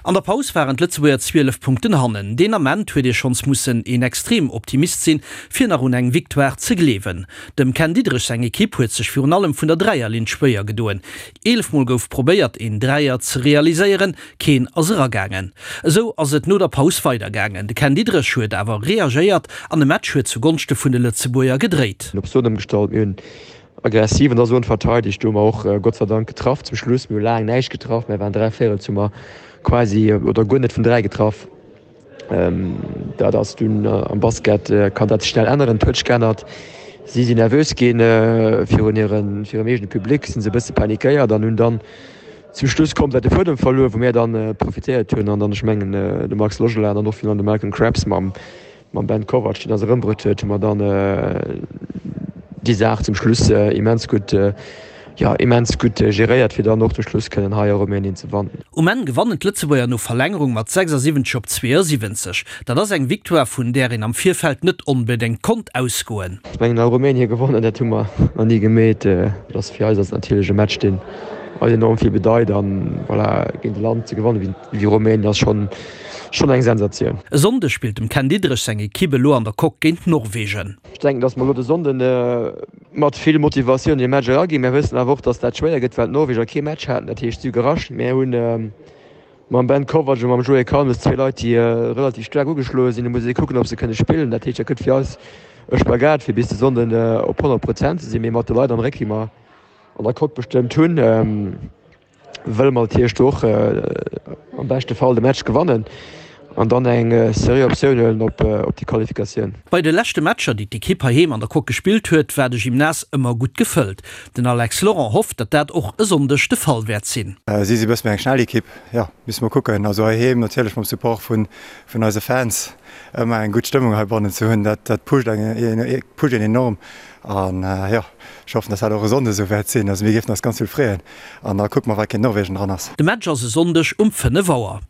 An der Paus waren d'Lëtzebuerger 12 Punkten hannen. Deen Ament huet ee schonns mussen een extrem Optimist sinn, fir nach un eng Victoire ze gleewen. Dem Ken Diederich seng Ekipp huet sech virun allem vun der Dräierlinn schwéier gedoen. 11 Mol gouf probéiert een Dräier ze realiséieren, keen ass eragaangen. Esou ass et no der Paus weidergaangen. De Ken Diederich huet awer reagéiert an de Match huet zu Gonschte vun de Lëtzebuerger gedréit. Op Zone ëmgestallt. Mir hunn aggressiv an der Zone verteidegt. Do hu mer och Gott sei Dank getraff zum Schluss. Mir hu laang näischt getraff. Mir waren 3 Véirels hu mer quasi oder guer net vun 3 getraff. Dat ass dunn am Basket kann dat sech schnell änneren. Et huet sech geännert. Si sinn nervös ginn virun hirem eegene Public, sinn se e bësse panikéiert an hunn dann zum Schluss komplett de Fuedem verluer, wou mir dann profitéiert hunn an dann, ech mengen de Max Logelin an och virun allem de Malcolm Krabs mam Mam Ben Kovac, deen eis erëmbruet huet, hu mer dann déi Saach zum Schluss immens gutt, jo, immens gutt geréiert, fir dann och zum Schluss kënnen hei a Rumänien ze wannen. Um Enn gewannen d'Lëtzebuerger no Verlängerung mat 76 op 72. Dat ass eng Victoire, vun där een am Virfeld net onbedéngt konnt ausgoen. Ech mengen, a Rumänien gewonnen, dat hu mer nach ni gemeet. Dat ass fir eis ass et natierlech e Match, deen eis enorm vill bedeit. An voilà, géint e Land ze gewannen wéi Rumänien ass schonn, Schonn eng Sensatioun. E Sonndeg spillt dem Ken Diederich seng Ekipp elo an der Coque géint Norwegen. Ech denken, datt mer elo de Sonnden mat vill Motivatioun an dee Match eraginn. Mir wëssen awer och, datt dat schwéier gëtt, well d'Norweger kee Match haten. Dat heescht, si hu gerascht. Mir hunn mam Ben Kovac a mam Joé Kalmes zwee Leit, déi relativ staark ugeschloe sinn. Do muss ee kucken, ob se kënne spillen. Dat heescht, dat gëtt fir eis e Spagat, fir bis de Sonnden op 100 Prozent ze sinn. Mee mat de Leit am Réck, déi mer an der Coque bestëmmt hunn, Wëlle mer natierlech do och am beschte Fall de Match gewannen an dann eng seriö Optioun huelen op déi Qualifikatioun. Bei de leschte Matcher, déi d'Ekipp heiheem an der Coque gespillt huet, war de Gymnase ëmmer gutt gefëllt. Den Alex Laurent hofft, datt dat och e Sonndeg de Fall wäert sinn. Si si bësse méi eng schnell Ekipp, jo, musse mer kucken. Also heiheem natierlech mam Support vun eise Fans ëmmer eng gutt Stëmmung heibannen ze hunn, dat pusht een enorm. An jo, ech hoffen, datt dat och e Sonnde esou wäert sinn. Also mir géifen eis ganz vill freeën. An da kucke mer, wat géint Norwegen dran ass. De Match ass e Sonndeg um 5 Auer.